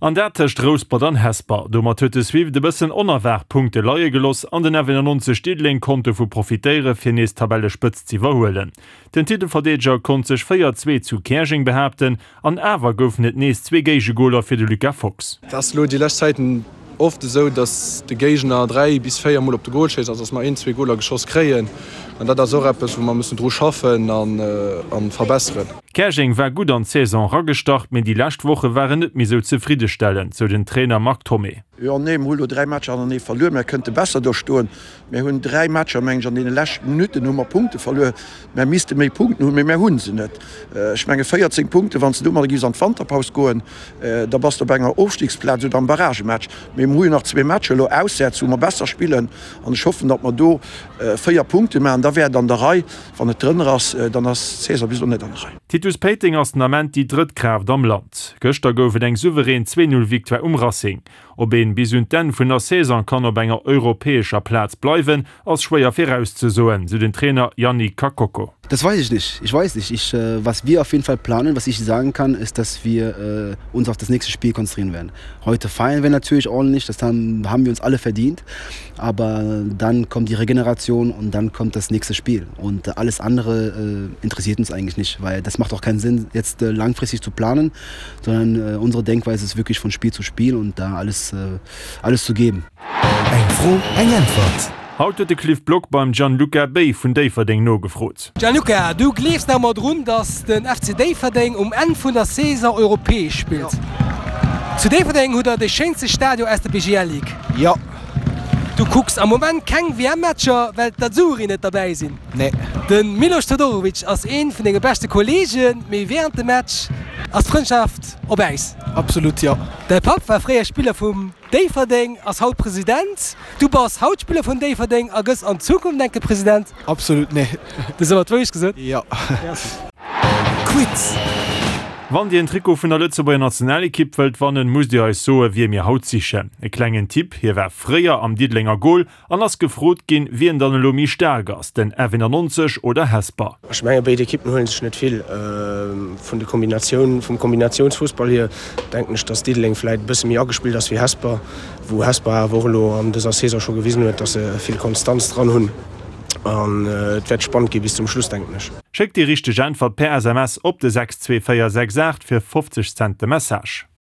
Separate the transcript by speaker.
Speaker 1: An dat tëscht Rouspert an Hesper. Domat huet de Swift e bëssen onerwaart Punkte leie geloss an den F91 Diddeleng konnt dovu profitéiere fir nees d'Tabellespëtzt z'iwwerhuelen. Den Titelverdeedeger konnt sech 4, 2 zu Käerjeng behaapten an awer goufen et nees zwee Géigegoler fir de Lucas Fox.
Speaker 2: Et ass elo déi lescht Zäiten oft esou, dass de Géigner 3 bis 4 mol op de Gol schéisst, also dass mer een, zwee Goler geschoss kréien. An dat ass och eppes, wou mer mussen dru schaffen a verbesseren.
Speaker 1: Käerjeng war gutt an d'Saison eragestart, mee déi lescht Woche waren net méi sou zefriddestellend, sou den Trainer Marc Thomé.
Speaker 3: Jo, nee, mer hu lo 3 Matcher hanernee verluer. Mer kënnte besser do stoen. Mer hunn 3 Matcher, meng ech, an deene leschten Minutten hu mer Punkte verluer. Mer misste méi Punkten hunn, mee mer hu se net. Ech menge 14 Punkten, wann s de domadder giffs an d'Wanterpaus goen, da bass de op enger Ofstiegsplaz oder am Barragematch. Mee mer hu jo nach zwee Matcher elo auswäerts, wou mer besser spillen an ech hoffen, datt mer do 4 Punkte maachen. Da wär et an der Rei. Wann et drënner ass, dann ass d'Saison bis elo net an der Rei.
Speaker 1: Titus Péiteng ass den Ament déi drëtt Kraaft am Land. Gëschter gouf et eng souverän 2, 0 Victoire um Racing. Ob een bis un d'Enn vun der Saison kann op enger europäescher Plaz bleiwen, ass schwéier virauszesoen, sou den Trainer Yannick Kakoko.
Speaker 4: Das weiß ich nicht. Ich weiß nicht. Ich, was wir auf jeden Fall planen, was ich sagen kann, ist, dass wir uns auf das nächste Spiel konzentrieren werden. Heute feiern wir natürlich ordentlich, das haben, haben wir uns alle verdient. Aber dann kommt die Regeneration und dann kommt das nächste Spiel. Und alles andere äh, interessiert uns eigentlich nicht, weil das macht auch keinen Sinn, jetzt äh, langfristig zu planen, sondern äh, unsere Denkweise ist wirklich von Spiel zu Spiel und da alles, äh, alles zu geben.
Speaker 1: Eng Fro, eng Äntwert. Haut huet de Cliff Block beim Gianluca Bey vun Déifferdeng nogefrot.
Speaker 5: Gianluca, du gleefs nach emmer drun, dass den FC Déifferdeng um Enn vun der Saison europäesch spillt. Zu Déifferdeng hutt der de schéinste Stadion aus der BGL Ligue.
Speaker 6: Jo.
Speaker 5: Du kucks am Moment keng WM-Matcher, well d'Azzurri net derbäi sinn.
Speaker 6: Nee.
Speaker 5: De Milos Todorovic ass ee vun denge beschte Kolleegen, mee wärend dem Match ass d'Frëndschaft op Äis.
Speaker 6: Absolut, jo.
Speaker 5: Däi Papp war fréier Spiller vum Déifferdeng, ass haut President. Du bass haut Spiller vun Déifferdeng a gëss an Zukunft enke President.
Speaker 6: Absolut, nee.
Speaker 5: Du hues awer d'Wourecht gesot.
Speaker 6: Jo.
Speaker 1: Quiz. Wann Dir en Trikot vun der Lëtzebuerger Nationalekipp wëllt wannen, musst Dir eis soe wie mir haut sichen. E klengen Tipp, Hie war fréier am Diddelenger Gol an ass gefrot ginn, wien dann elo méi staark ass, den F91 oder Hesper.
Speaker 7: Ech menge béid Ekippen huele sech net vill. Vun de Kombinatioun, vum Kombinatiounsfussball hier denken ech, datt Diddeleng vläit e bësse méi agespillt ass wéi Hesper, wou Hesper awer och elo an dëser Saison scho gewisen huet, datt se vill Konstanz dran hunn. An et wäert spannend gi bis zum Schluss, denken ech.
Speaker 1: Schéckt déi richteg Äntwert per SMS op de 62468 fir 50 Cent de Message.